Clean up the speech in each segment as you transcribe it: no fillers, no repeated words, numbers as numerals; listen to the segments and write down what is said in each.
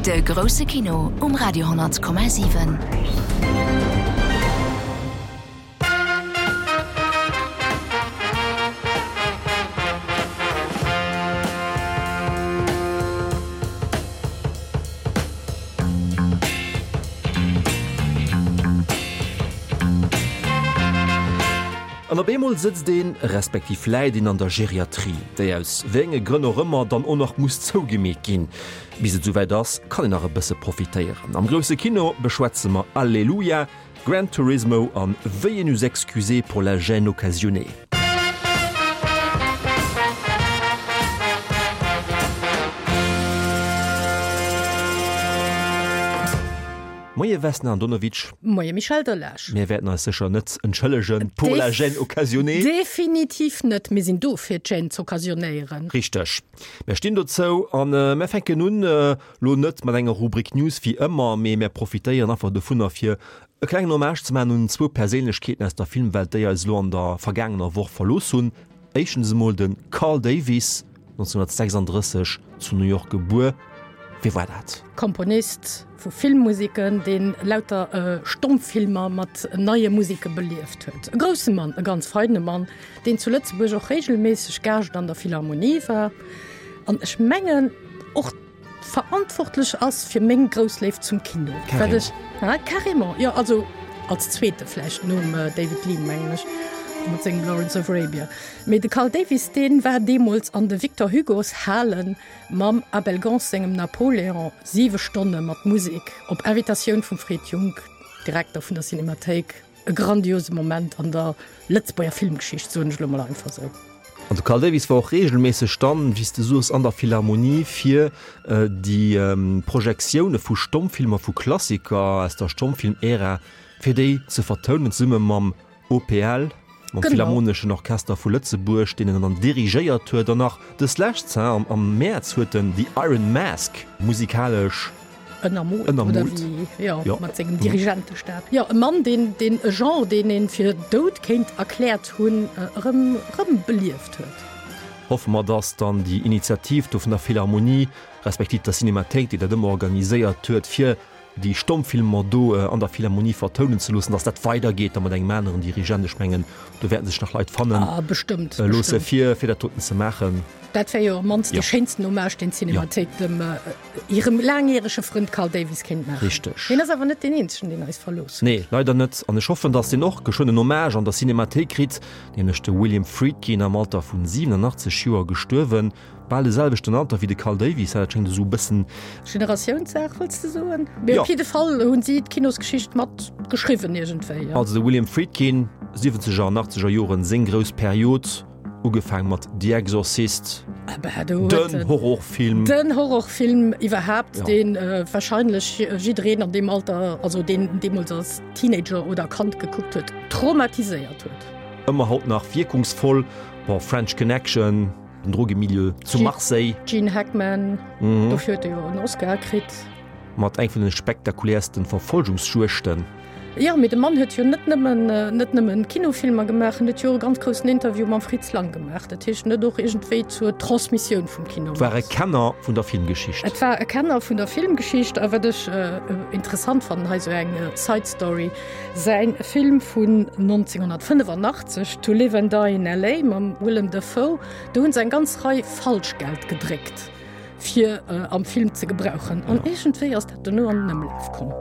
De grousse Kino um Radio 10,7. An op eemol sëtzt een, respektiv läit een an der Geriatrie, déi aus wéi enge Grënn och ëmmer dann och nach muss zougemeet ginn. Bis et esouwäit ass, kann een nach e bësse profitéieren. Am grousse Kino beschwätze mer Alleluia, Gran Turismo an Veuillez nous excuser pour la gêne occasionnée. Moie Vesna Andonovic. Moie Michel Delage. Mir wäerten eis sécher net entschëllegen pour la gêne occasionnée. Definitiv net. Mir sinn do fir d'Gêne z'occasionnéieren. Richteg. Mär stinn dozou an mär fänken un Lo net mat enger Rubrik News wéi ëmmer, mee mär profitéieren einfach dovunner fir e klengen Hommage ze maachen un zwou Perséinlechkeeten aus der Filmwelt, déi eis elo an der vergaangener Woch verlooss hunn. Éischtens emol de Carl Davis, 1936 zu New York gebuer. Wie war dat? Komponist vu Filmmuseken, deen lauter Stommfilmer mat neie Museke belieft huet. E grousse Mann, e ganz feine Mann, deen zu Lëtzebuerg och regelméisseg Gaascht an der Philharmonie war an ech mengen och verantwortlech ass fir meng grouss Léift zum Kino. Wat ech, ah, carrément, jo, also als zweete vläicht nom David Lean, mengen ech, mat sengem Lawrence of Arabia. Mee de Carl Davis, dee war deemools an de Victor Hugo's Halen mam Abel Gance sengem Napoléon, siwe Stonne mat Musek, op Invitatioun vum Fred Junck, Direkter vun der Cinemathéik. E grandiose Moment an der Lëtzebuerger Filmgeschicht, soen ech elo mol einfach esou. An de Carl Davis war och reegelméisseg dann, wéi s de soos, an der Philharmonie fir déi Projektioune vu Stommfilmer, vu Klassiker aus der Stommfilm-Ära, fir déi ze vertounen, zesumme mam OPL, mam Philharmoneschen Orchester vu Lëtzebuerg, deen en dann dirigéiert huet. An nach dës Lescht, am Mäerz, huet en The Iron Mask musikalesch Ënnermoolt, oder wéi, jo, jo, mat sengem Dirigentestab. Jo, e Mann, deen, deen e Genre, deen ee fir dout kéint erkläert hunn, erëm, erëm belieft huet. Hoffe mer, dass dann déi Initiativ do vun der Philharmonie, respektiv der Cinemathéik, déi dat ëmmer organiséiert huet, fir déi Stommfilmer do an der Philharmonie vertounen ze loossen, dass dat weidergeet da mat engem aneren Dirigent. Ech mengen, do wäerten sech nach Leit fannen Ah, bestëmmt, loosse, fir, fir dat doten ze maachen. Dat wär jo am mannst dee schéinsten Hommage, deen d'Cinemathéik dem hirem laangjärege Frënd Carl Davis kéint maachen. Richteg. Hien ass awer net deen eenzegen, deen eis verlooss huet. Nee, leider net. An ech hoffen, datt deen och geschwënn en Hommage an der Cinemathéik kritt, nämlech de William Friedkin, am Alter vun 87 Joer gestuerwen. Bal de selwechten Alter wéi de Carl Davis, dat schéngt esou e bëssen. Generatiounssaach, wëlls de soen? Mee op jidde Fall hunn si d'Kinosgeschicht mat geschriwwen iergendwéi. Also de William Friedkin, siwwenzeger an achtzeger Joren, seng grouss Period. Ugefaang mat The Exorcist, den Horrorfilm. Den Horrorfilm iwwerhaapt, deen warscheinlech jiddereen an deem Alter, also deen deemools als Teenager oder Kand gekuckt huet, traumatiséiert huet. Ëmmer haut nach wierkungsvoll. Bon, French Connection, den Drogemilieu zu Marseille. Gene Hackman, dofir huet e jo en Oscar kritt. Mat eng vun de spektakuläersten Verfolgungsjuegten. Jo, mee de Mann huet jo net nëmmen, net nëmmen Kinofilmer gemaach, en huet jo och e ganz groussen Interview mam Fritz Lang gemaach. Dat heescht, en huet och iergendwéi zur Transmissioun vum Kino mat. War e Kenner vun der Filmgeschicht. Et war e Kenner vun der Filmgeschicht. A wat ech interessant fannen, hei sou eng Side Story, säin Film vun 1985, To Live and Die in LA. mam Willem Dafoe, do hunn se eng ganz Rei Falschgeld gedréckt. fir am Film ze gebrauchen. An iergendwéi ass dat dono an den Ëmlaf komm.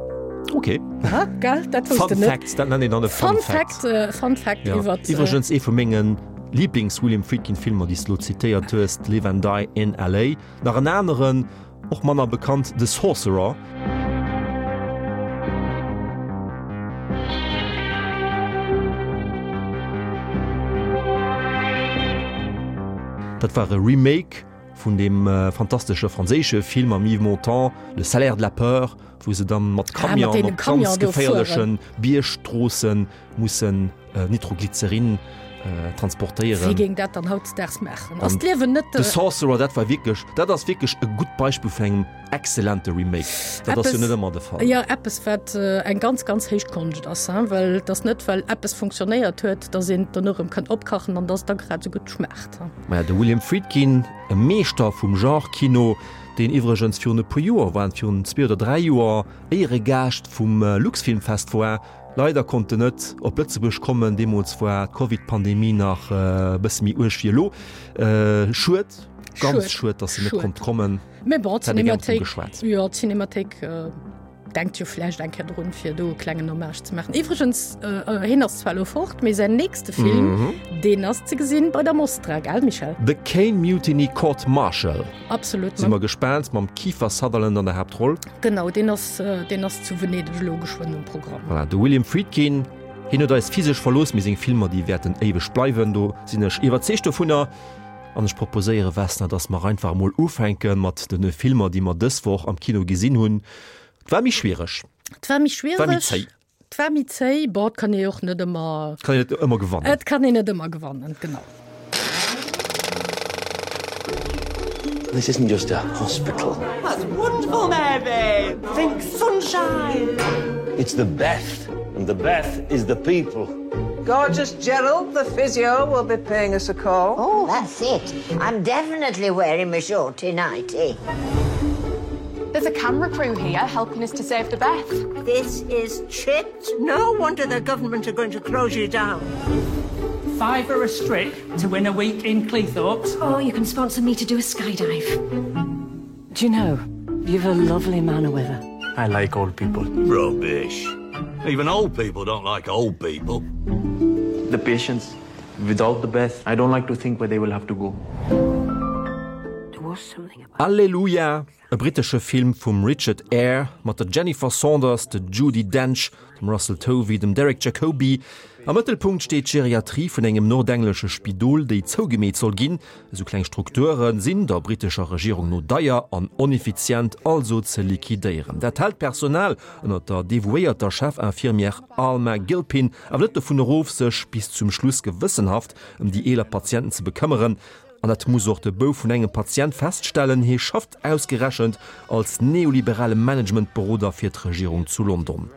Ok. Ha, gell? Dat wousst de Fun net. Fact, dat nennt een dann e Fun Fun Fact. Fact, äh, Fun Fact Ja. iwwert. Iwwregens ee vu mengen Lieblings-William Friedkin-Filmer, déi s de lo zitéiert hues, Live and Die in LA. Nach en aneren, och manner bekannt, The Sorcerer. Dat war e Remake vun deem fantastesche franséische Film mam Yves Montand, Le salaire de la peur, wou se dann mat Camion op ganz geféierleche Biergstroosse mussen Nitroglycerin. Transportéieren. Wie géing dat dann hautdesdaags maachen? Ass d'Liewen net. The Sorcerer, dat war wierklech, dat ass wierklech e gutt Beispill vun engem exzellente Remake. Dat ass jo net ëmmer de Fall. Jo, eppes wat eng ganz, ganz héich Konscht ass, hein, well et ass net, well eppes funktionéiert huet, datt een et dono erëm kann opkachen an datt et da grad esou gutt schmaacht. Maja, de William Friedkin, e Meeschter vum Genre-Kino, deen iwwregens virun e puer Joer, waren et virun zwee oder dräi Joer, Éieregaascht vum Luxfilmfest war, Leider konnt en net op Lëtzebuerg kommen, deemools war d'Covid-Pandemie nach e bësse méi uerg wéi elo. Schued, ganz schued, datt en net konnt kommen. Mee bon, d'Cinémathéik, jo, d'Cinémathéik denkt jo vläicht eng Kéier drun, fir do e klengen Hommage ze maachen. Iwwregens, hien ass zwar elo fort, mee säin nächste Film, deen ass ze gesinn bei der Mostra, gell Michel? The Caine Mutiny Court Martial. Absolut. Si mer gespaant, mam Kiefer Sutherland an der Haaptroll. Genau, deen ass, deen ass zu Venedeg elo geschwënn um Programm. Voilà, de William Friedkin, hien huet eis physesch verlooss, mee seng Filmer, déi wäerten éiweg bleiwen, do sinn ech iwwerzeegt dovunner. An ech proposéiere, Vesna, dass mer einfach emol ufänke mat de Filmer, déi mer dës Woch am Kino gesinn hunn. Et war méi schwiereg. Et war méi schwiereg. Et war méi zéi. Et war méi zéi. Bon, et kann ee och net ëmmer. Et kann een net ëmmer gewannen. Et kann een net ëmmer gewannen, genau. This isn't just a hospital. That's wonderful, Mary! Think sunshine! It's the Beth, and the Beth is the people. Gorgeous Gerald, the physio, will be paying us a call. Oh, that's it. I'm definitely wearing my shorty nightie. There's a camera crew here helping us to save the Beth. This is chipped. No wonder the government are going to close you down. Fiver a strip to win a week in Cleethorpes. Oh, you can sponsor me to do a skydive. Do you know, you've a lovely manner with her. I like old people. Rubbish. Even old people don't like old people. The patients without the best, I don't like to think where they will have to go. There was something about Alleluia, e brittesche Film vum Richard Eyre mat der Jennifer Saunders, der Judi Dench, dem Russell Tovey, dem Derek Jacobi. Am Mëttelpunkt steet d'Geriatrie vun engem nordenglesche Spidol, déi zougemeet soll ginn. Esou kleng Strukture sinn der brittescher Regierung no deier an oneffizient, also ze liquidéieren. Dat hält d'Personal ënner der devouéierter Chef-Infirmière Alma Gilpin awer net dovun erof, sech bis zum Schluss gewëssenhaft ëm déi eeler Patienten ze bekëmmeren. An dat muss och de Bouf vun engem Patient feststellen, hie schafft ausgerechent als neoliberale Managementberoder fir d'Regierung zu London.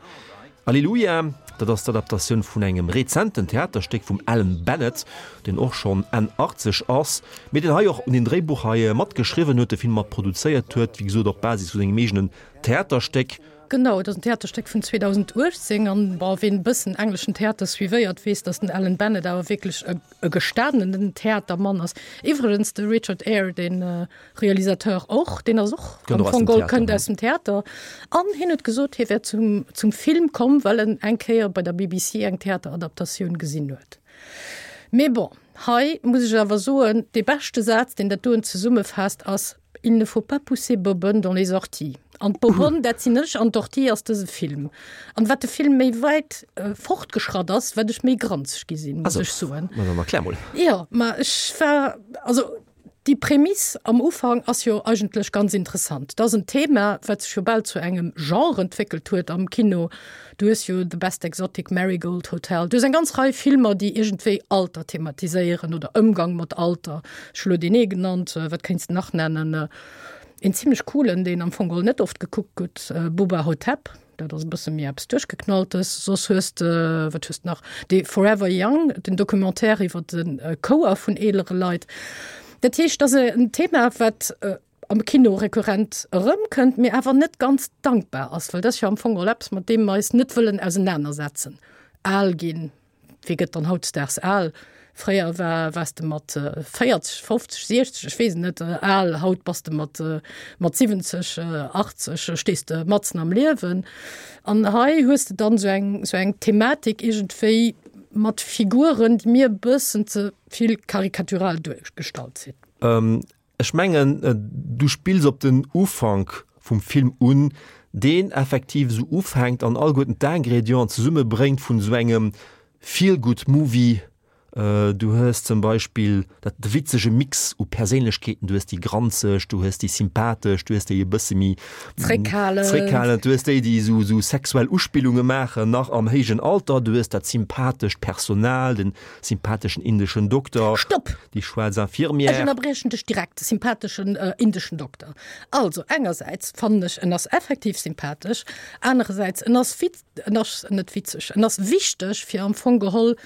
Alleluia, dat ass d'Adaptatioun vun engem rezenten Theaterstéck vum Alan Bennett, deen och schonn Enn 80 ass, mee deen hei och un den Dréibuch hei matgeschriwwen huet, de Film mat produzéiert huet, wéi gesot op Basis vu sengem eegenen Theaterstéck. Genau, et ass en Theaterstéck vun 2018 an, bon, ween e bëssen engleschen Theater suivéiert, weess, datt den Alan Bennett awer wierklech e e gestanenen Theatermann ass. Iwwregens de Richard Eyre, de Realisateur och, deen ass och am Fong geholl kënnt aus dem Theater. An hien huet gesot, hie wär zum, zum Film komm, well en eng Kéier bei der BBC eng Theateradaptatioun gesinn huet. Mee bon, hei muss ech awer soen, dee beschte Saz, deen dat doen zesummefaasst, ass, Il ne faut pas pousser Bobonne dans les orties. An d'Bobonne, dat sinn ech, an d'Ortie ass dëse Film. An wat de Film méi wäit fortgeschratt ass, wat ech méi granzeg gi sinn, muss ech soen. Ma dann erklär mol. Jo, ma ech war, also déi Prämiss am Ufank ass jo eigentlech ganz interessant. Dat ass en Thema, wat sech jo bal zu engem Genre entwéckelt huet am Kino. Du hues jo The Best Exotic Marigold Hotel, du hues eng ganz Rei Filmer, déi iergendwéi Alter thematiséieren oder Ëmgang mat Alter. Ech hu lo deen ee genannt, wat kéints de nach nennen? Een zimlech coolen, deen am Fong geholl net oft gekuckt gëtt, Bubba Ho-Tep, dat ass e bësse méi eppes Duerchgeknalltes. Soss hues de, wat hues de nach? Dee Forever Young, den Documentaire iwwer de Chouer vun eelere Leit. Dat heescht, dat ass en Thema, wat am Kino rekurrent erëmkënnt, mee awer net ganz dankbar ass, well dat ass jo am Fong geholl eppes, mat deem mer eis net wëllen ausenanersetzen. Al ginn, wie gëtt dann hautdesdaags al? Fréier war, waars de mat 40, 50, 60, ech weess et net, al, haut bass de mat, mat 70, 80, stees de matzen am Liewen. An hei hues de dann esou eng, esou eng Thematik iergendwéi mat Figuren, déi mir e bëssen ze vill karikatural duergestallt sinn. Ech mengen, du spills op den Ufank vum Film un, deen effektiv esou ufänkt an alleguerten d'Ingrédienten zesummebréngt vun esou engem Feel-Good-Movie. Du hues zum Beispill dat de witzege Mix u Perséinlechkeeten, du hues déi granzeg, du hues déi sympathesch, du hues déi e bësse méi Zréckhalend. zréckhalend, du hues déi, déi esou esou sexuell Uspillunge maachen, nach am héijen Alter, du hues dat sympathescht Personal, den sympatheschen indeschen Dokter, Stopp! déi schwaarz Infirmière. Ech ënnerbriechen dech direkt, de sympatheschen indeschen Dokter. Also engersäits fannen ech, en ass effektiv sympathesch, anerersäits en ass wit, en ass net witzeg, en ass wichteg, fir am Fong geholl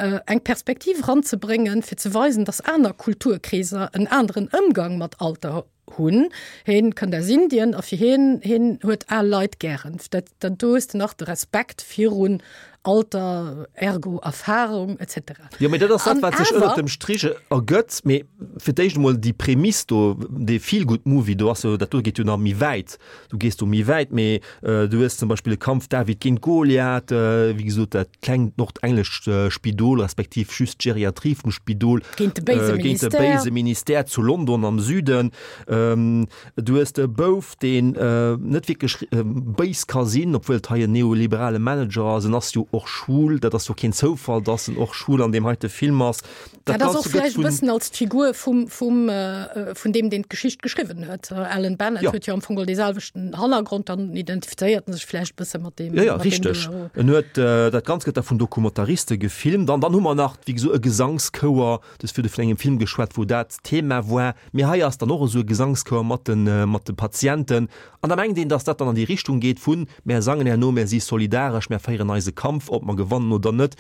eng Perspektiv eranzebréngen, fir ze weisen, datt aner Kulturkreeser en aneren Ëmgang mat Alter hunn. Hien kënnt aus Indien a fir hien, hien huet al Leit gären. Dat, dat do hues de nach de Respekt virun Alter, ergo Erfahrung et cetera. Jo, mee dat ass dat, wat sech ënnert dem Strich ergëtt. Mee fir d'éischt emol déi Prämiss do, dee Feel-Good-Movie do ass jo, dat do geet jo nach méi wäit. Du gees do méi wäit, mee du hues zum Beispill e Kampf David géint Goliath, wéi gesot dat klengt nordenglescht Spidol, respektiv just d'Geriatrie vum Spidol géint de béise géint de béise Ministère zu London am Süden. Du hues de Bouf, deen net wierklech béis ka sinn, obwuel et hei en neoliberale Manager ass. En ass jo och schwul, dat ass jo keen Zoufall, datt en och schwul an deem heite Film ass. Dat ass och vläicht e bëssen als d'Figur vum, vum, vun deem, deen d'Geschicht geschriwwen huet. Alan Bennett huet jo am Fong geholl dee selwechten Hannergrond, dann identifizéiert en sech vläicht e bësse mat deem. Jo, jo, richteg. En huet, dat Ganzt gëtt da vun Dokumentariste gefilmt. An dann hu mer nach, wéi gesot, e Gesangschouer. Du hues virdu vun engem Film geschwat, wou dat Thema war. Mee hei ass dann och esou e Gesangschouer mat de, mat de Patienten. An da mengt een, dass dat dann an déi Richtung geet vun, Mär sangen herno, mär si solidaresch, mär féieren eise Kampf, ob mer gewannen oder net.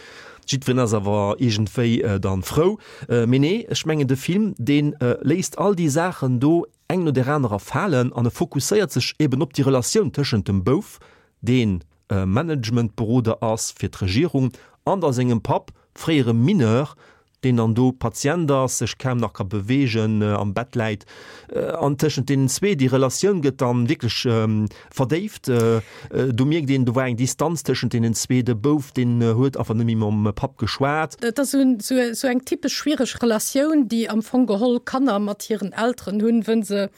Jiddwereen ass awer iergendwéi dann frou. Mee nee, ech mengen de Film, dee léisst all déi Saachen do eng no där anerer falen an e fokusséiert sech eben op déi Relatioun tëschent dem Bouf, deen Managementberoder ass fir d'Regierung, an da sengem Papp, fréiere Mineur, deen dann do Patient ass, sech kaum nach ka beweegen, am Bett läit, an tëschent deenen zwee, déi Relatioun gëtt dann wierklech verdéift. Do mierkt een, do war eng Distanz tëschent deenen zwee, de Bouf, deen huet einfach net méi mam Papp geschwat. Et ass esou eng typesch schwiereg Relatioun, déi am Fong geholl Kanner mat hiren Elteren hunn, wënn se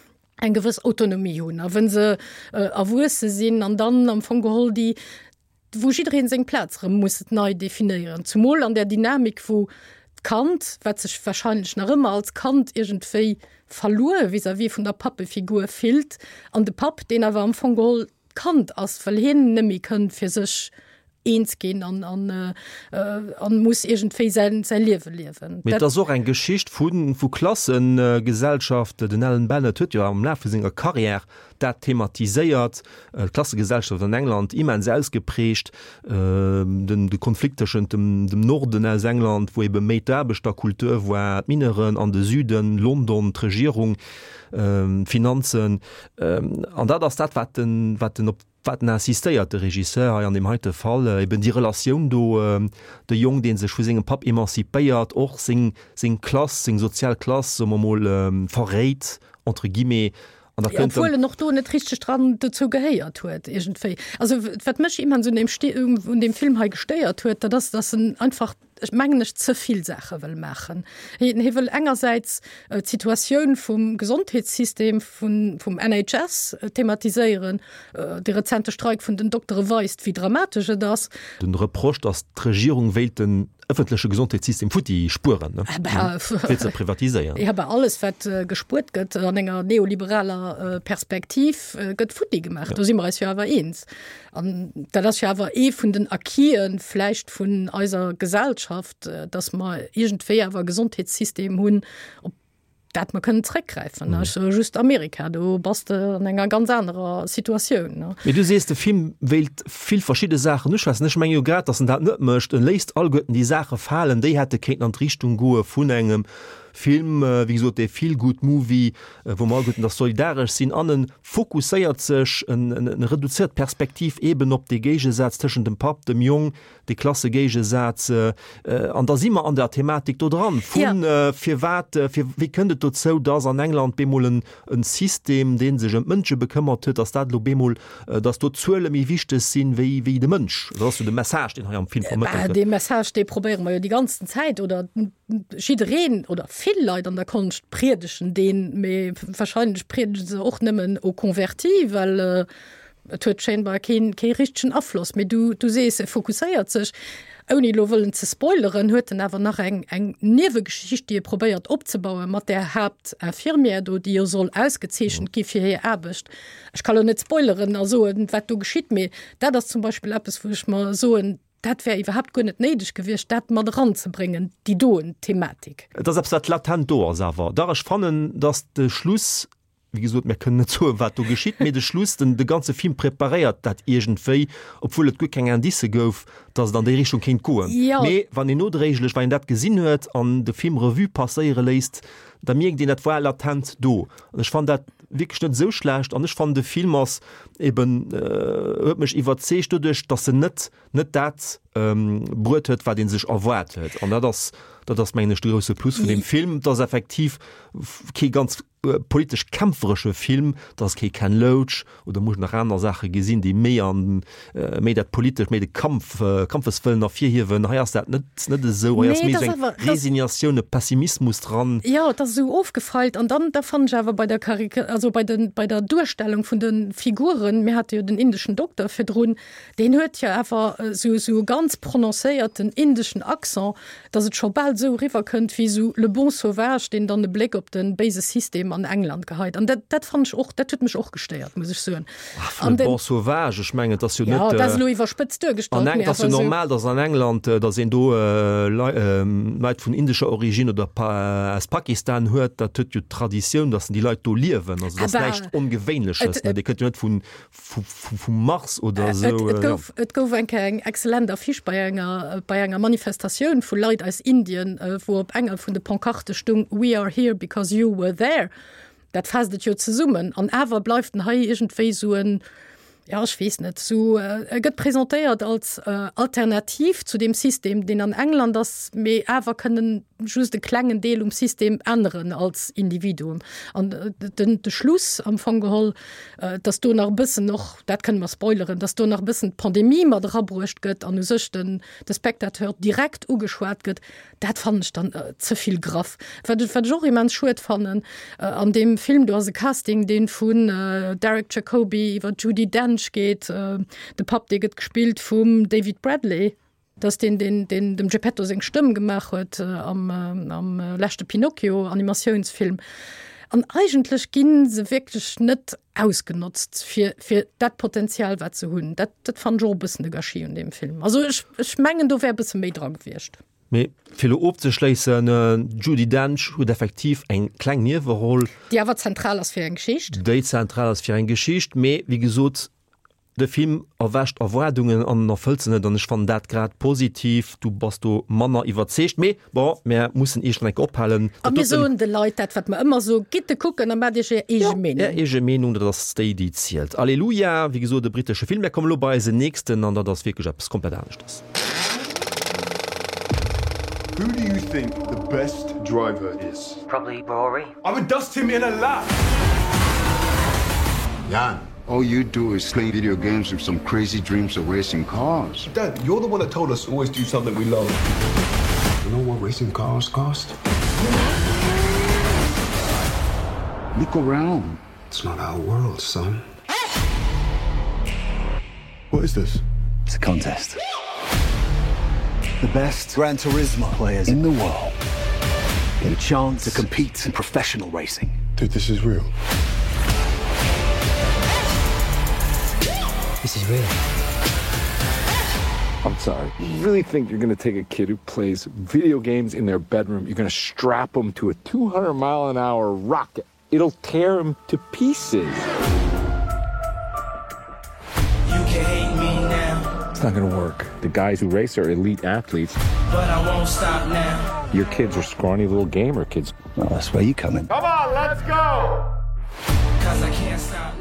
eng gewëss Autonomie hunn a wënn se erwuesse sinn an dann am Fong geholl déi wou jiddereen seng Plaz erëm muss nei definéieren, zumol an där Dynamik, wou d'Kand, wat sech wahrscheinlech nach ëmmer als Kand iergendwéi verluer vis-à-vis vun der Pappefigur fillt, an de Papp, deen awer am Fong geholl d'Kand ass, well hien net méi kënnt fir sech eens ginn an, an, an muss iergendwéi säin, säi Liewe liewen. Mee et ass och eng Geschicht vu, vu Klassegesellschaft. Den Alan Bennett huet jo am Laf vu senger Karriär dat thematiséiert, d'Klassegesellschaft an England immens ausgeprägt, den de Konflikt tëschent dem dem Norden aus England, wou ebe méi d'Aarbechterkultur war, d'Mineuren, an de Süden, London, d'Regierung, d'Finanzen. An dat ass dat, wat den wat den op wat en insistéiert, de Regisseur hei an deem heite Fall, eben déi Relatioun do, de Jong, dee sech vu sengem Papp emanzipéiert, och seng seng Klass, seng sozial Klass, soe mer mol, verréit, entre guillemets, An da kënnt Obwuel en och do net richteg dran dozou gehéiert huet iergendwéi. Also wat mech immens un deem Sti un deem Film hei gestéiert huet, dat ass, datt en einfach, ech mengen ech, ze vill Saache wëll maachen. Hien hie wëll engersäits d'Situatioun vum Gesondheetssystem, vun vum NHS thematiséieren. De rezente Streik vun den Doktere weist, wéi dramatesch et ass. Den Reproche, datt d'Regierung wéilt den ëffentleche Gesondheetssystem futti spueren, ne? Fir ze privatiséieren. Ja, bah, alles wat gespuert gëtt an enger neoliberaler Perspektiv gëtt futti gemaach. Do si mer eis jo awer eens. An dat ass jo awer ee vun den Acquisen vläicht vun eiser Gesellschaft, datt mer iergendwéi awer e Gesondheetssystem hunn, op dat mer kënnen zréckgräifen. Ech soe just Amerika, do bass de an enger ganz anerer Situatioun. Mee du sees, de Film wéilt vill verschidde Saachen uschwätzen. Ech menge jo grad, datt en dat net mécht. En léisst alleguerten déi Saache falen, déi hätte kéinten an d'Richtung goe vun engem Film, wéi gesot, dee Feel-Good-Movie, wou mer alleguerten da solidaresch sinn. An en fokusséiert sech, en reduzéiert d'Perspektiv eeben op dee Géigesaz tëschent dem Papp, dem Jong, de Klassegéigesaz, an da si mer an der Thematik do dran, vun firwat, fir wéi kënnt et dozou, datt an England bemol en System, dee sech ëm d'Mënsche bekëmmert huet, datt dat elo bemol, datt do d'Zuele méi wichteg sinn wéi wéi de Mënsch. Dat ass jo de Message, deen hei am Film vermëttelt gëtt. Dee Message, dee probéiere mer jo déi ganzen Zäit, oder jiddereen oder vill Leit an der Konscht priedegen deen, mee wahrscheinlech priedege se och nëmmen aux convertis, well Et huet scheinbar keen, kee richtegen Afloss. Mee du, du sees, e fokusséiert sech. Ouni elo wëllen ze spoileren, huet en awer nach eng, eng Niewegeschicht, déi e probéiert opzebauen mat där Haaptinfirmière do, déi jo soll ausgezeechent gi fir hir Aarbecht. Ech ka lo net spoileren a soen, wat do geschitt, mee dat ass zum Beispill eppes, wou ech mer soen, dat wär iwwerhaapt guer net néideg gewiescht, dat mat eranzebréngen, déi doen Thematik. Et ass eppes, wat latent do ass awer. Dach, ech fannen, datt de Schluss, wéi gesot, mir kënnen net soen, wat do geschitt, mee de Schluss, den, de ganze Film preparéiert dat iergendwéi, obwuel et guer keng Indicë gouf, datt et an déi Richtung kéint goen. Jo. Mee wann een nodréiglech, wann een dat gesinn huet an de Film Revue passéiere léisst, da mierkt een, dat war latent do. An ech fannen dat wierklech net esou schlecht an ech fannen, de Film ass eben, huet mech iwwerzeegt doduerch, datt en net, net dat bruet huet, wat ee sech erwaart huet. An dat ass, dat ass mengen ech de grousse Plus vun deem Film, et ass effektiv kee ganz politesch kämpferesche Film, et ass kee Ken Loach oder muss nach aner Saache gesinn, déi méi an méi dat politesch, méi de Kampf, Kampfeswëllen ervirhiewen. Hei ass dat net net esou. Hei ass méi esou eng Resignatioun, e Pessimismus dran. Jo, et ass esou ofgefeilt. An dann, da fannen ech awer bei der Karika-, also bei de, bei der Duerstellung vun de Figuren, mir hate jo den indeschen Dokter virdrun, deen huet jo awer esou esou e ganz prononcéierten indeschen Accent, dass et scho bal esou eriwwer kënnt wéi esou Le bon sauvage, deen dann e Bléck op de béise System an England geheit. An dat, dat fannen ech och, dat huet mech och gestéiert, muss ech soen. Ach, Le bon sauvage, ech mengen, et ass jo net. Jo, dat ass elo iwwerspëtzt duergestallt, mee awer esou. Et ass jo normal, dass an England, dass een do Leit vun indescher Origine oder aus Pakistan huet. Dat huet jo Traditioun, dass déi Leit do liewen. Also, dat ass näischt Ongewéinleches, ne? Dir kënnt jo net vun vum Mars oder esou. Et gouf, et gouf eng Kéier eng excellent Affiche bei enger, bei enger Manifestatioun vu Leit aus Indien, wou op enger vun de Pancarte stung, We are here because you were there. Dat faasst et jo zesummen. An awer bleift en hei iergendwéi esou en, ja ech weess net, esou, e gëtt presentéiert als Alternativ zu deem System, deen an England ass, mee awer kënnen just e klengen Deel um System änneren als Individuum. An den, de Schluss am Fong geholl, dass do nach e bëssen och, dat kënne mer spoileren, dass do nach e bëssen d'Pandemie mat erabruecht gëtt an u sech den, de Spectateur direkt ugeschwat gëtt, dat fannen ech dann ze vill graff. Wat ech, wat ech och immens schued fannen an deem Film, do ass e Casting, dee vun Derek Jacobi iwwer d'Judi Dench geet, de Papp, dee gëtt gespillt vum David Bradley. Dat ass deen, deen, deen dem Geppetto seng Stëmm gemaach huet am, am leschte Pinocchio-Animatiounsfilm. An eigentlech gi se wierklech net ausgenotzt fir, fir dat Potenzial, wat se hunn. Dat, dat fannen ech och e bëssen de Gâchis un deem Film. Also ech, ech mengen, do wär e bësse méi dra gewiescht. Mee fir elo ofzeschléissen, D'Judi Dench huet effektiv eng kleng Nieweroll. Déi awer zentral ass fir eng Geschicht. Déi zentral ass fir eng Geschicht, mee wéi gesot, De Film erwächt Erwaardungen an en erfëllt se net an ech fannen dat grad positiv. Du bass do manner iwwerzeegt, mee bon, mär mussen iergendwann eng Kéier ophalen. A mir soen de Leit dat, wat mer ëmmer soen, Gitt e kucken a maacht iech är eege Meenung. Är eege Meenung, dat ass déi, déi zielt. Alleluia, wéi gesot e brittesche Film. Mär kommen elo bei eisen nächsten an dat ass wierklech eppes komplett aneschtes. Who do you think the best driver is? Probably Rory. I would dust him in a lap! Jan, all you do is play video games with some crazy dreams of racing cars. Dad, you're the one that told us to always do something we love. You know what racing cars cost? Look around. It's not our world, son. What is this? It's a contest. The best Gran Turismo players in the world get a chance to compete in professional racing. Dude, this is real. This is real. I'm sorry. You really think you're going to take a kid who plays video games in their bedroom, you're going to strap them to a 200 mile an hour rocket? It'll tear him to pieces. You can hate me now. It's not gonna work. The guys who race are elite athletes. But I won't stop now. Your kids are scrawny little gamer kids. Well, that's where you come in. Come on, let's go!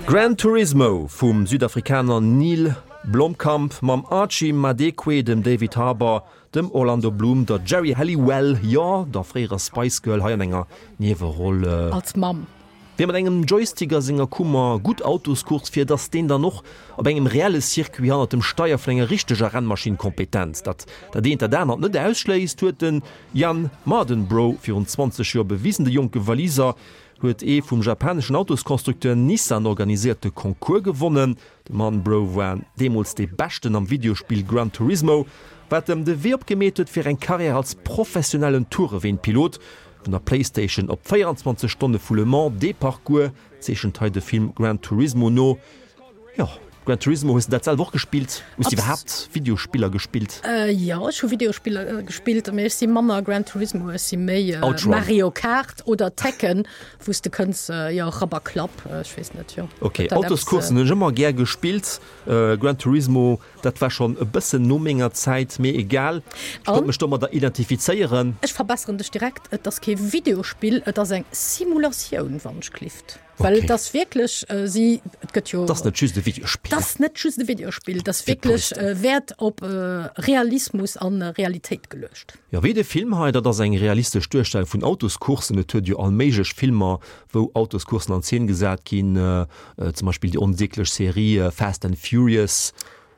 Gran Turismo vum Südafrikaner Neill Blomkamp mam Archie Madekwe, dem David Harbour, dem Orlando Bloom, der Geri Halliwell, jo, der fréierer Spice Girl, hei an enger Nieweroll. Als Mamm. Wie mat engem Joystick a senger Kummer gutt Autoscourse fiert, ass deen dann och op engem reelle Circuit hannert dem Steier vun enger richteger Rennmaschinn kompetent. Datt dat eent dat anert net ausschléisst, huet de Jann Mardenborough virun 20 Joer bewisen. De jonke Waliser huet ee vum japaneschen Autosconstructeur Nissan organiséierte Concours gewonnen. De Mardenborough war deemools dee Beschten am Videospill Gran Turismo. Wat em de Wee opgemeet huet fir eng Karriär als professionellen Toureweenpilot. Vun der Playstation op 24 Stonne vu Le Mans, dee Parcours zeechent hei de Film Gran Turismo no. Jo, Gran Turismo, hues de dat selwer och gespillt? Hues de iwwerhaapt Videospiller gespillt? Jo, ech hu Videospiller gespillt, mee ech si manner Gran Turismo, ech si méi Mario Kart oder Tekken, wou s de kënns, jo, Rapp a Klapp, ech weess net, jo. Ok, Autoscoursen hunn ech ëmmer gär gespillt. Gran Turismo, dat war schonn e bëssen no menger Zäit, mee egal, ech konnt mech domadder identifizéieren. Ech verbesseren dech direkt, et ass kee Videospill, et ass eng Simulatioun, wann ech gelift. Well et ass wierklech, si, et gëtt jo. Et ass net just e Videospill. Et ass net just e Videospill, et ass wierklech Wäert op Realismus a Realitéit geluecht. Jo, wéi de Film hei, dat ass eng realistesch Duerstellung vun Autoscourssen. Et huet jo all méiglech Filmer, wou Autoscourssen an Zeen gesat ginn, zum Beispill déi onsieglech Serie Fast and Furious.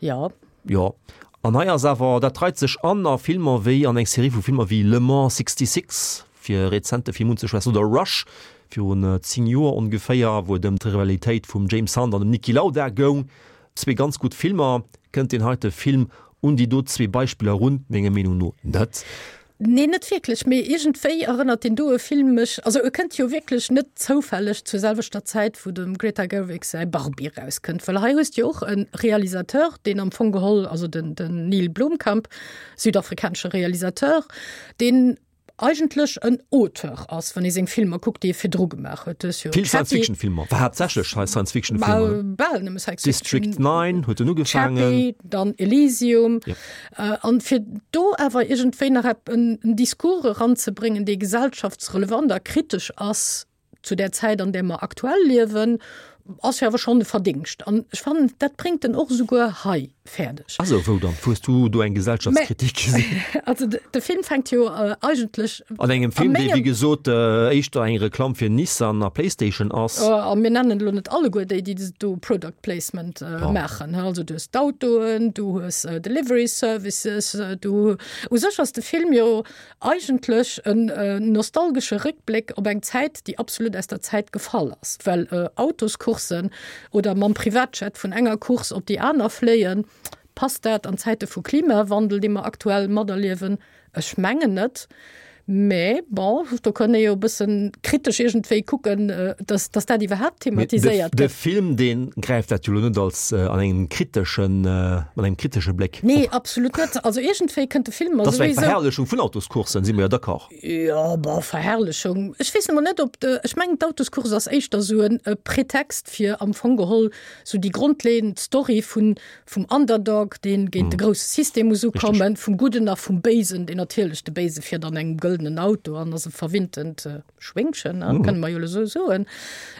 Jo. Jo, an hei ass awer, dat reit sech an a Filmer wéi, an eng Serie vu Filmer wéi Le Mans 66, fir e rezente Film unzeschwätzen, oder Rush, virun 10 Joer ongeféier, wou et ëm d'Rivalitéit vum James Hunt an dem Niki Lauda goung. Zwee ganz gutt Filmer. Kënnt deen heite Film un déi do zwee Beispiller erun? Menger Meenung no net. Nee, net wierklech, mee iergendwéi erënnert deen doe Film mech, also e kënnt jo wierklech net zoufälleg zur selwechter Zäit, wou dem Greta Gerwig säi Barbie erauskënnt, well hei hues de jo och e Realisateur, deen am Fong geholl, also den Neill Blomkamp, südafrikanesche Realisateur, deen eigentlech en Auteur ass, wann ee seng Filmer kuckt, déi e virdru gemaach huet. Du hues jo Vill Science-Fiction-Filmer, war haaptsächlech Science-Fiction-Filmer. Bal nëmme Science-Fiction. District 9 huet en ugefaangen. Chappie, dann Elysium. Yep. An fir do awer iergendwéi nach ep en Discours eranzebréngen, dee gesellschaftsrelevant a kritesch ass, zu där Zäit, an där mer aktuell liewen, ass jo awer schonn e Verdingscht. An ech fannen, dat bréngt en och esouguer hei fäerdeg. Also wou dann? Wou hues du do eng Gesellschaftskritik gesinn? Also de Film fänkt jo eigentlech. An engem Film, dee wéi gesot éischter eng Reklamm fir Nissan a Playstation ass. A mir nennen elo net alleguer déi, déi do Product Placement maachen. Also du hues d'Autoen, du hues Delivery Services, du, u sech ass de Film jo Eigentlech en nostalgesche Réckbléck op eng Zäit, déi absolut aus der Zäit gefall ass, well Autoscourssen oder mam Privatjet vun enger Course op déi aner fléien, passt dat an Zäite vu Klimawandel, dee mer aktuell materliewen? Ech mengen net. Mä bon, do kann ee jo e bësse kritesch iergendwéi kucken, dass dass dat iwwerhaapt thematiséiert gëtt. De Film, dee gräift dat jo elo net als an engem kriteschen, mat engem kritesche Bléck op. Nee, absolut net. Also iergendwéi kënnt de Film mer Dat ass eng Verherrlechung vun Autoscourssen, si mer jo d'accord. Jo, bon, Verherrlechung, ech weess emol net, ob de, ech mengen d'Autoscourse ass éischter esou e Pretext fir am Fong geholl esou déi grondleeënd Story vun, vum Underdog, dee géint de grousse System muss ukommen, vum Gudden a vum Béisen, deen natierlech de Béise fiert an engem gëldenen Auto an ass e verwinntent Schwéngchen, ne, kënne mer jo elo esou soen,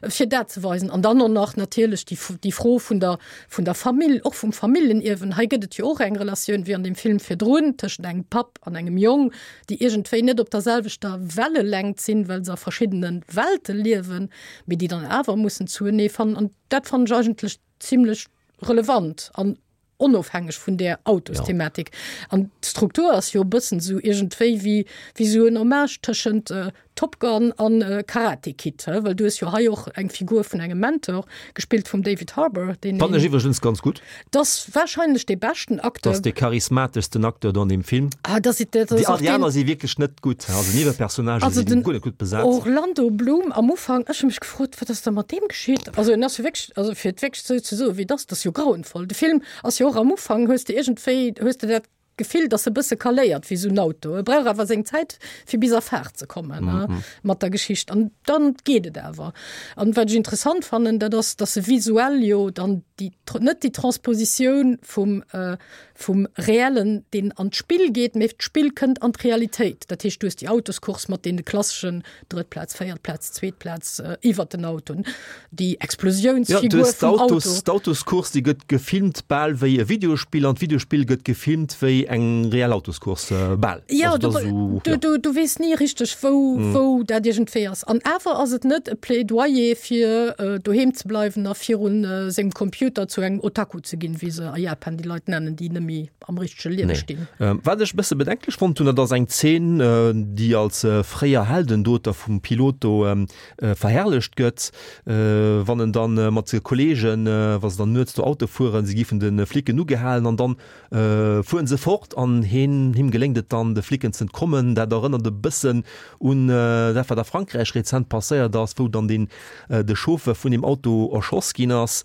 fir dat ze weisen. An dann och nach natierlech déi, déi Fro vun der, vun der Famill, och vum Familljenierwen. Hei gëtt et jo och eng Relatioun, wéi an deem Film virdrun, tëschent engem Papp an engem Jong, déi iergendwéi net op der selwechter Wellelängt sinn, well se a verschiddene Welte liewen, mee déi dann awer mussen zuenee fannen. An dat fannen ech eigentlech zimlech relevant an onofhängeg vun där Autosthematik. An d'Struktur ass jo e bëssen esou iergendwéi wéi wéi esou en Hommage tëschent Top Gun an Karate Kid, he, well du hues jo hei och eng Figur vun engem Mentor, gespillt vum David Harbour, deen Fannen ech iwwregens ganz gutt. Dat ass wahrscheinlech dee beschten Acteur. Dat ass dee charismateschsten Acteur do an deem Film. Ah, dat ass, dat ass och deen. Déi aner si wierklech net gutt, also Niewepersonnagë si guer net gutt besat. Orlando Bloom am Ufank, ech hu mech gefrot, wat ass da mat deem geschitt? Also en ass jo wierklech, also fir et wierklech esou ze soen, wéi et ass, dat ass jo grauenvoll. De Film ass jo och am Ufank, hues de iergendwéi, hues de dat Gefill, dass e bësse kaléiert wéi esou en Auto. E brauch awer seng Zäit, fir bis a Faart ze kommen mat der Geschicht. An dann geet et awer. An wat ech interessant fannen, dat ass, dass e visuell jo dann déi, net déi Transpositioun vum, vum Reellen, deen an d'Spill geet, mee d'Spill kënnt an d'Realitéit. Dat heescht, du hues déi Autoscourse mat deene klasseschen Drëtt Plaz, véiert Plaz, zweet Plaz iwwert den Autoen, déi Explosiounsfigur ja, vum Auto. D'Autoscourse, déi gëtt gefilmt bal wéi e Videospill an d'Videospill gëtt gefilmt wéi eng reell Autoscourse bal. Ja, also, du, so, du, ja. du, du weess ni richteg, wou, mm. wou dat iergendwéi ass. An awer ass et net e Plädoyer fir äh, doheem ze bleiwen a virun äh, sengem Computer zu engem Otaku ze ginn, wéi se a Japan déi Leit nennen, déi nëmme am richtege Liewe stinn. Wat ech e bësse bedenklech fonnt hunn, dat ass eng Zeen, déi als fréier Heldendoter vum Pilot do verherrlecht gëtt, wann en dann mat senge Kolleegen, wa se dann nuets do Auto fueren, se gi vun de Flicken ugehalen an dann fueren se fort. fort an heen, him geléngt et dann, de Flicken z'entkommen. Dat erënnert e bëssen un dat, wat a Frankräich rezent passéiert ass, wou dann deen, de Chauffeur vun deem Auto erschoss ginn ass.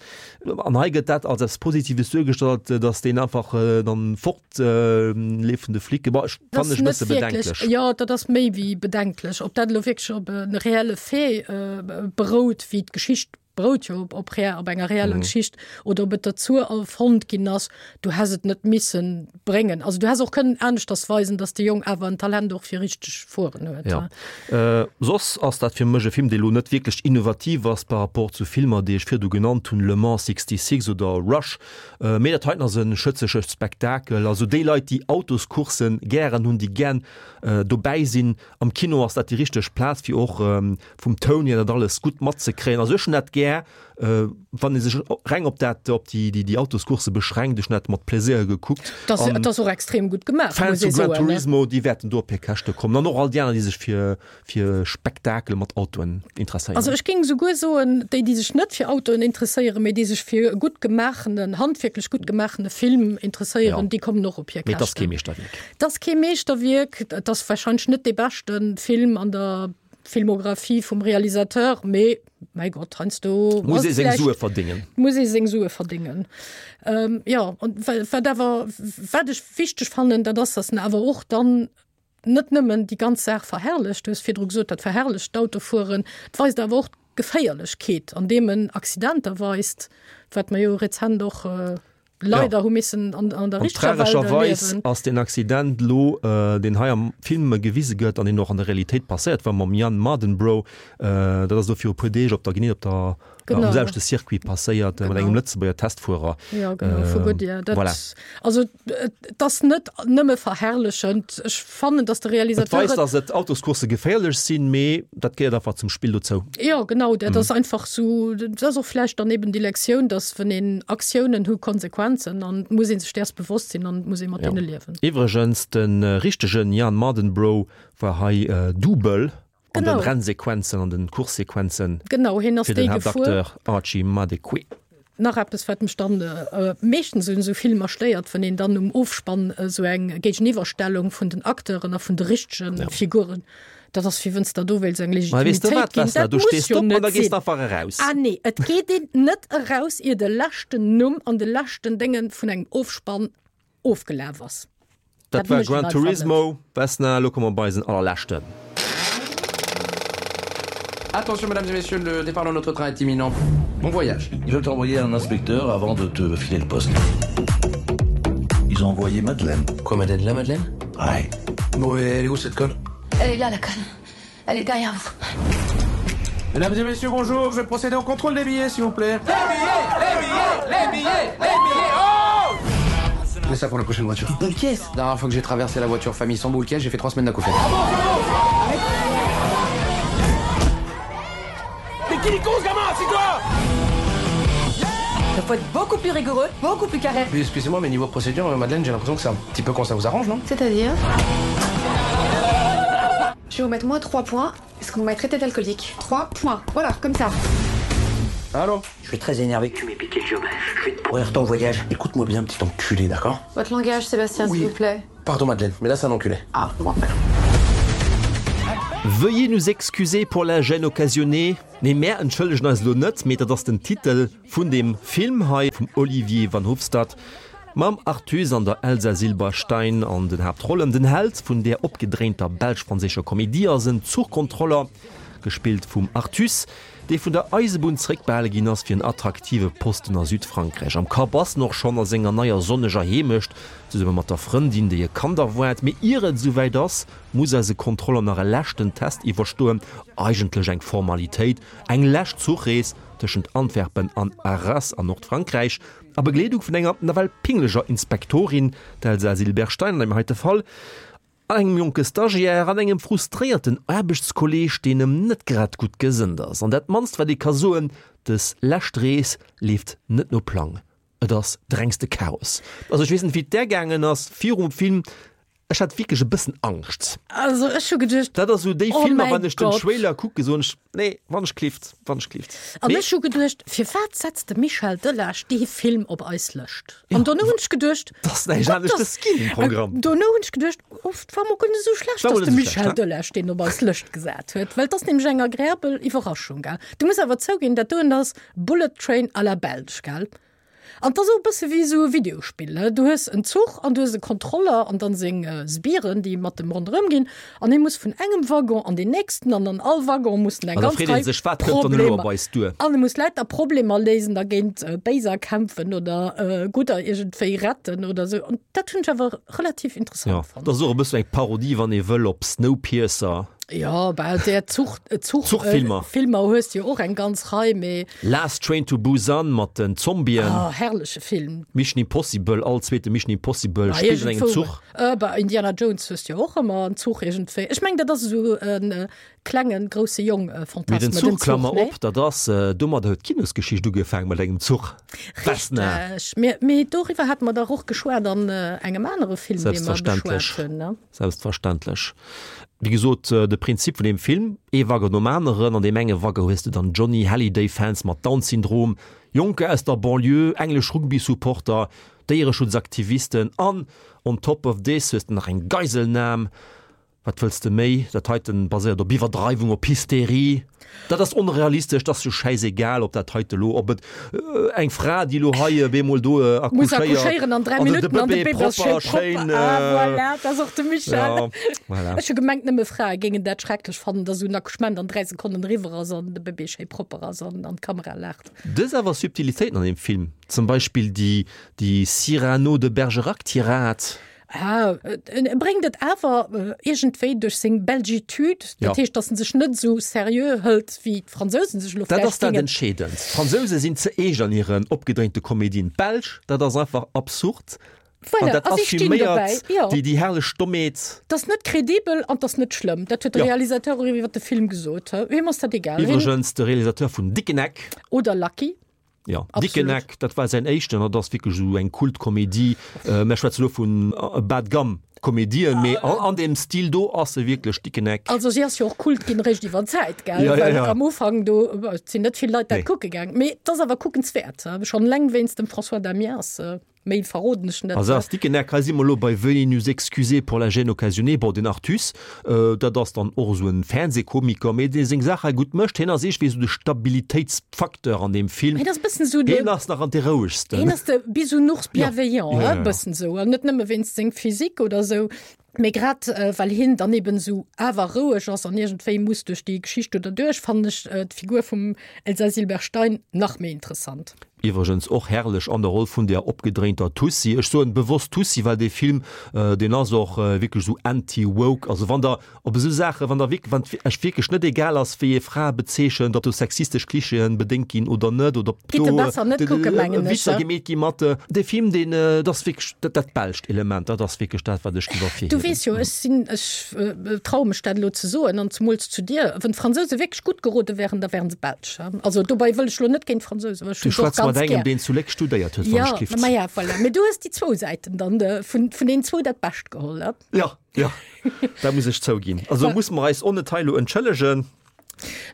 An hei gëtt dat als eppes Positives duergestallt, datt deen einfach dann fort leeft vun de Flicken. Bon, ech Dat fannen ass ech e net bësse wierklech, bedenklech. jo, dat ass méi wéi bedenklech. Ob dat elo wierklech op e reelle Fait berout, wéi d'Geschicht berout jo op, op, op enger reeller mhm. Geschicht oder ob et dazu erfonnt ginn ass, du has et net missen bréngen. Also du has och kënnen aneschters weisen, dass de Jong awer en Talent och fir richteg fueren huet. Ja. Äh, soss ass dat fir mech e Film, dee lo net wierklech innovativ ass par rapport zu Filmer, déi ech virdu genannt hunn, Le Mans 66 oder Rush. Äh, mee dat heiten ass e schëtzege Spektakel. Also déi Leit, déi Autoscourssen gären hunn, déi gären äh, dobäi sinn am Kino, ass dat déi richteg Plaz fir och ähm, vum Toun hier dat alles gutt matzekréien. Also ech hunn dat gär, wann ee sech reng op dat, op déi, déi, déi Autoscourse beschränkt. Ech hunn dat mat Pläsier gekuckt. Dat ass, dat ass och extrem gutt gemaach, Fans vu Gran Turismo, déi wäerten do op hir Käschte kommen. An och all déi aner, déi sech fir, fir Spektakel mat Autoen interesséieren. Also ech géing esouguer soen, déi, déi sech net fir Autoen interesséieren, mee déi sech fir e gutt gemaachenen, handwierklech gutt gemaachene Film interesséieren, déi kommen och op hir Käschten. Mee et ass kee Meeschterwierk. Et ass kee Meeschterwierk. Et ass warscheinlech net dee beschte Film an der Filmographie vum Realisateur, mee mäi Gott, heiansdo muss ee seng Sue verdéngen. Muss ee seng Sue verdéngen. Ähm, jo, an wat awer, wat ech wichteg fannen, dat ass, datt en awer och dann net nëmmen déi ganz Saach verherrlecht, du hues virdru gesot, dat verherrlecht d'Autofueren, et weist awer och d'Geféierlechkeet, andeem en Accidenter weist, wat mer jo rezent och leider hu missen an, an der An richteger Welt tragescherweis erliewen. ass deen Accident lo, deen hei am Film gewise gëtt an deen och an der Realitéit passéiert war mam Jann Mardenborough, dat ass elo viru puer Deeg op der, genee op der, Genau. am selwechte Circuit passéiert, mat Genau. engem Lëtzebuerger Testfuerer. Ja, genau, vu Goodyear. Dat, Voilà. Also et ass net nëmme verherrlechend. Ech fannen, datt de Et Realisateur weist, datt et Autoscoursse geféierlech sinn, mee dat gehéiert einfach zum Spill dozou. Jo, genau, dat ass einfach sou, dat ass och vläicht dann eben déi Lektioun, datt wann een Aktiounen hu Konsequenzen an et muss ee sech däers bewosst sinn an et muss ee mat deene liewen. Iwwregens, de richtegen Jann Mardenborough war hei Double an den Genau. Rennsequenzen, an den Coursesequenzen Genau, hien ass fir den dee gefuer. Haaptacteur Archie Madekwe. Nach eppes, wat mech dann meeschtens un esou Filmer stéiert, wann een dann um Ofspann esou eng Géigeniwwerstellung vun den Acteuren a vun de richtege Figuren, dat ass wéi wënns der do wéilts eng Mä weess de Legitimitéit wat, ginn. Vesna, Dat du muss stees jo op an net da gees sinn. de einfach eraus. Ah nee, et geet een net eraus, ier de leschten Numm an de leschten Dénge vun engem Ofspann ofgelaf ass. Dat war Gran Turismo. Vesna, elo komme mer bei eisen allerleschten. Attention mesdames et messieurs, le départ de notre train est imminent. Bon voyage. Ils veulent t'envoyer un inspecteur avant de te filer le poste. Ils ont envoyé Madeleine. Quoi Madeleine La Madeleine Ouais. Bon, et elle est où cette conne Elle est là la conne. Elle est derrière vous. Mesdames et messieurs, bonjour, je vais procéder au contrôle des billets, s'il vous plaît. Les billets, les billets, les billets, les billets, oh Mets ça pour la prochaine voiture. Boule caisse La dernière fois que j'ai traversé la voiture famille sans boule caisse, j'ai fait trois semaines d'acouphènes. Mais qui con ce gamin, c'est quoi Il faut être beaucoup plus rigoureux, beaucoup plus carré. Puis, excusez-moi, mais niveau procédure, Madeleine, j'ai l'impression que c'est un petit peu quand ça vous arrange, non C'est-à-dire Je vais vous mettre moins 3 points, parce qu'on m'a traité d'alcoolique. 3 points, voilà, comme ça. Allô Je suis très énervé que tu m'aies piqué le job. Je vais te pourrir ton voyage. Écoute-moi bien, petit enculé, d'accord Votre langage, Sébastien, oui. s'il vous plaît. Pardon, Madeleine, mais là, c'est un enculé. Ah, bon. Veuillez nous excuser pour la gêne occasionnée. Nee, mär entschëllegen eis elo net, mee dat ass den Titel vun deem Film hei vum Olivier Van Hoofstad mam Arthuis an der Elsa Silberstein an den Haaptrollen. Den Held vun där opgedréinter belsch-franséischer Komedie ass en Zuchkontroller, gespillt vum Arthuis, dee vun der Eisebunn zeréckbehale ginn ass fir en attraktive Posten a Südfrankräich. Am Kapp ass en och schonn a senger neier sonneger Heemecht, zesumme mat der Frëndin, déi e Kand erwaart. Mee ier et esouwäit ass, muss eise Kontroller nach e leschten Test iwwerstoen, eigentlech eng Formalitéit, eng lescht Zuchrees tëschent Antwerpen an Arras an Nordfrankräich, a Begleedung vun enger nawell pingleger Inspektorin, d'Elsa Silberstein an deem heite Fall, an engem jonke Stagiaire an engem frustréierten Aarbechtskolleeg, deen em net grad gutt gesënnt ass. An dat mannst wat ee ka soen, dës lescht Rees leeft net no Plang, et ass de rengste Chaos. Also ech weess net wéi et där gaangen ass virum Film. Ech hat wierklech e bëssen Angscht. Also ech hu geduecht, Dat ass esou déi oh Filmer, mäi wann ech den Gott. Trailer kucke soen ech, nee, wann ech klift, wann ech klift. An Mee ech hu geduecht, firwat setzt de Michel Delage dee Film op eis Lëscht? An dono hunn ech geduecht, 't ass näischt Gott, anescht dass es ginn um Programm. Dono hunn ech geduecht, oh, 't war mol guer net esou schlecht, War mol dass net de esou Michel schlecht, he? Delage deen op eis Lëscht gesat huet, well 't ass nämlech eng agreabel Iwwerraschung, gell? Du muss awer zouginn, dat doen ass Bullet Train à la belge, gell? An 't ass och e bësse wéi esou e Videospill, du hues en Zuch an du hues e Kontroller an dann seng Sbiren, déi mat em ronderëm ginn an hie muss vun engem Waggon an deen nächsten an an all Waggon muss en eng An da ganz freet ee Rei sech, wat kënnt dann elo op Problemer eis duer? an e muss lauter Problemer léisen a géint Béiser kämpfen oder Gudder iergendwéi retten oder esou an dat hunn ech awer relativ interessant Jo, fonnt. dat ass och e bëssen eng Parodie, wann ee wëll, op Snowpiercer. Jo, bah, där Zuch, Zuch, Zuchfilmer. Filmer hues de jo och eng ganz Rei, mee. Last Train to Busan mat den Zombien. Oh, herrleche Film. Mission Impossible, all zweete Mission Impossible spillt an engem Zuch. Bah, Indiana Jones hues de jo och ëmmer en Zuch iergendwéi. Ech mengen, dat ass esou e klengen, grousse Jong Fantasme, Mee den Zuch, Klammer op, op, dat ass, domadder huet d'Kinosgeschicht ugefaangen, mat engem Zuch. Vesna. Richteg. Mee doriwwer hate mer dach och geschwat an engem anere Film, dee mer beschwat hunn, ne? Selbstverständlech. Wéi gesot, de Prinzip vun deem Film, ee Waggon nom aneren. An deem enge Waggon hues de dann Johnny Hallyday-Fans mat Down-Syndrom, Jonker aus der Banlieue, englesch Rugby-Supporter, Déiereschutzaktivisten an on top of this hues de nach eng Geiselnam. Wat wëlls de méi? Dat heiten baséiert op Iwwerdreiwung, op Hysterie. Dat ass onrealistesch, dat ass jo schäisegal, ob dat heite lo, ob et eng Fra, déi lo hei op eemol do Muss accouchéieren an 3 an de Minutten an de Bëbee Bëbee ass propper, schéin schéin. propper. Ah voilà, dat ass och de Michel. Ja, voilà. Ech hu gemengt, nëmme Frae géingen dat schrecklech fannen, dass esou en Accouchement an 3 Sekonnen eriwwer ass an de Bëbee schéi propper ass an an d'Kamera laacht. Dës awer Subtilitéiten an deem Film, zum Beispill déi, déi Cyrano de Bergerac-Tirade. Ah, en bréngt et awer iergendwéi duerch seng Belgitude, dat heescht, datt en sech net esou seriö hëlt, wéi d'Fransousen sech elo Dat vläicht ass dat géingen. Entscheedend. D'Fransouse sinn ze eescht an hiren opgedréinte Komedien. D'Belsch, dat ass einfach absurd. An Voilà, dat a si stinn dobäi, assuméiert jo. déi, déi herrlech Dommheet. 't ass net kredibel an 't ass net schlëmm. Dat huet de Jo. Realisateur och iwwer de Film gesot. Him ass dat egal. Hien. Iwwregens de Realisateur vun Dickeneck. Oder Lucky. Jo, Dickeneck, dat war säin éischten, dat ass wierklech esou eng Kultkomedie. Mär schwätze lo vun Bas de gamme Komedien, mee an deem Stil do ass se wierklech, Dickeneck. Also si ass jo och Kult ginn eréischt iwwer d'Zäit, gell? Ja, ja, Well ja. am Ufank do sinn net vill Leit dat Nee. kucke gaang. Mee et ass awer kuckenswäert, schonn eleng wéinst dem François Damiens. Méi verroden ech net. Also ass Dickeneck, hei si mer elo bei Veuillez nous excuser pour la gêne occasionnée. Bon, den Artus, dat ass dann och esou en Fernsehkomiker, mee dee seng Saach hei gutt mécht. Hien ass iergendwéi esou de Stabilitéitsfacteur an deem Film. Hien ass e bëssen esou de. Hien ass nach an dee rouegsten. Hien ass de Bisounours bienveillant, Ja, ja, e ja. bëssen esou. An net nëmme wéinst seng Physique oder esou, mee grad well hien dann eben esou awer roueg ass an iergendwéi muss duerch déi Geschicht do derduerch, fannen ech d'Figur vum Elsa Silberstein nach méi interessant. Iwwregens och herrlech an der Roll vun der opgedréinter Tussi. Ech soen bewosst Tussi, well dee Film, deen ass och wierklech esou anti-woke. Also wann der op esou Saachen, wann der wierk, wann et Iech wierklech net egal ass, wéi ee Frae bezeechent, ob do sexistesch Klischeeën bedéngt ginn oder net, oder ob Gitt do e besser net kucken, mengen ech. Witzer gemeet gi mat dee Film, deen, dat ass wierklech dat, dat belscht Element, dat ass wierklech dat, wat ech géif ervirhiewen. Du weess jo, ech sinn, ech traue mech dat elo ze soen, an zemools zu dir, wann d'Fransouse wierklech gutt gerode wären, da wären se Belsch. Also dobei wëll ech lo net géint d'Fransousen, well ech Du hunn se och schwätz mat ganz engem, gär. deen zu Léck studéiert huet, wann Ja, ech gift. ma ja, voilà. Mee du hues déi zwou Säiten dann de, vun, vun deenen zwou dat Bescht geholl, ne? Ja, ja, dat muss ech zouginn. Also muss mer eis och net hei elo entschëllegen.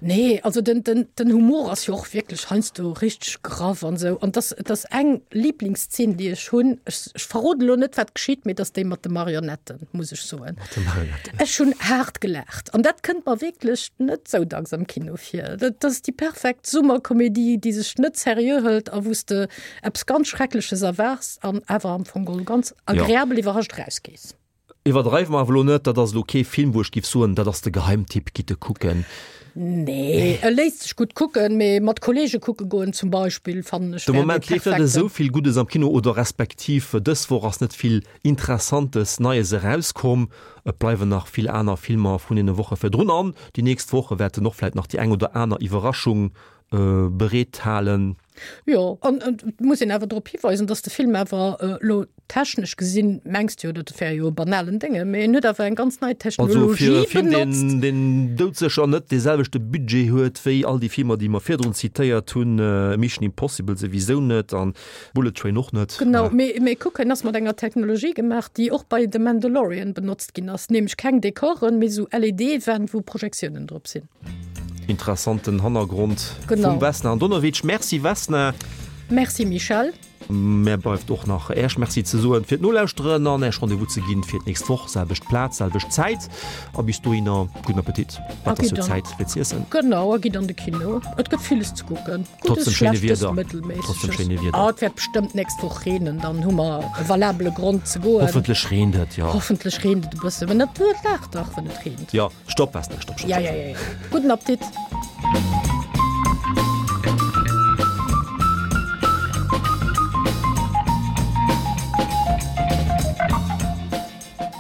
Nee, also den, den, den Humor ass jo och wierklech heiansdo richteg graff an esou. An dass, dass eng Lieblingszeen, déi ech hunn, ech, ech verroden elo net, wat geschitt, mee dass déi mat de Marionetten, muss ech soen. Mat de Marionetten. Ech hunn haart gelaacht. An dat kënnt mer wierklech net sou dacks am Kino vir. Dat ass déi perfekt Summerkomedie, déi sech net seriö hëlt a wou s de eppes ganz Schreckleches erwaarts an awer am Fong geholl ganz agreabel iwwerrascht erausgees. Iwwerdreiwe mer awer elo net, dat ass elo kee Film, wou ech giff soen, dat ass de Geheimtipp, gitt e kucken. Nee, e léisst sech gutt kucken, mee mat Kollege kucke goen zum Beispill fannen ech De wär dee Moment leeft net perfekten. esou vill Guddes am Kino oder respektiv dës Woch ass net vill Interessantes Neies erauskomm. Et bleiwen nach vill aner Filmer vun deene Woche virdrun an déi nächst Woche wäerten och vläit nach déi eng oder aner Iwwerraschung. Bereet halen. Jo, an et muss een awer drop hiweisen, datt de Film awer elo technesch gesinn, mengs de jo, dat wär jo e banalen Dénge, mee en huet awer eng ganz nei Also fir e Technologie Film, deen, benotzt. deen doudsécher net dee selwechte Budget huet wéi all déi Filmer, déi mer virdrun zitéiert hunn, Mission Impossible souwisou net an Bullet Train och net. Genau, mee, mee kuck, en ass mat enger Technologie gemaach, déi och bei The Mandalorian benotzt ginn ass, nämlech keng Dekoren, mee esou LED-Wänn, wou Projektiounen drop sinn. Interessanten Hannergrond vum Vesna Andonovic. Merci Vesna. Merci Michèle. Mär bleift och nach Äech Merci ze soen fir d'Nolauschteren an Äech Rendez-vous ze ginn fir d'nächst Woch, selwecht Plaz, selwecht Zäit. A bis dohinner gudden Appetit, wat ass jo Zäit fir z'iessen. Genau, a gitt an de Kino, et gëtt villes ze kucken, Guddes, Trotz dem schéine Schlechtes, Wieder. Trotz dem schéine Mëttelméissegen. Wieder. Ah, et wäert bestëmmt d'nächst Woch reenen, dann hu mer e valabele Grond ze goen. Hoffentlech reent et, jo. Hoffentlech reent et e bëssen, mä dat laacht dach, wann et reent. Jo, stopp Vesna, stopp, stopp, Ja, stopp. ja, ja, ja. Gudden Appetit.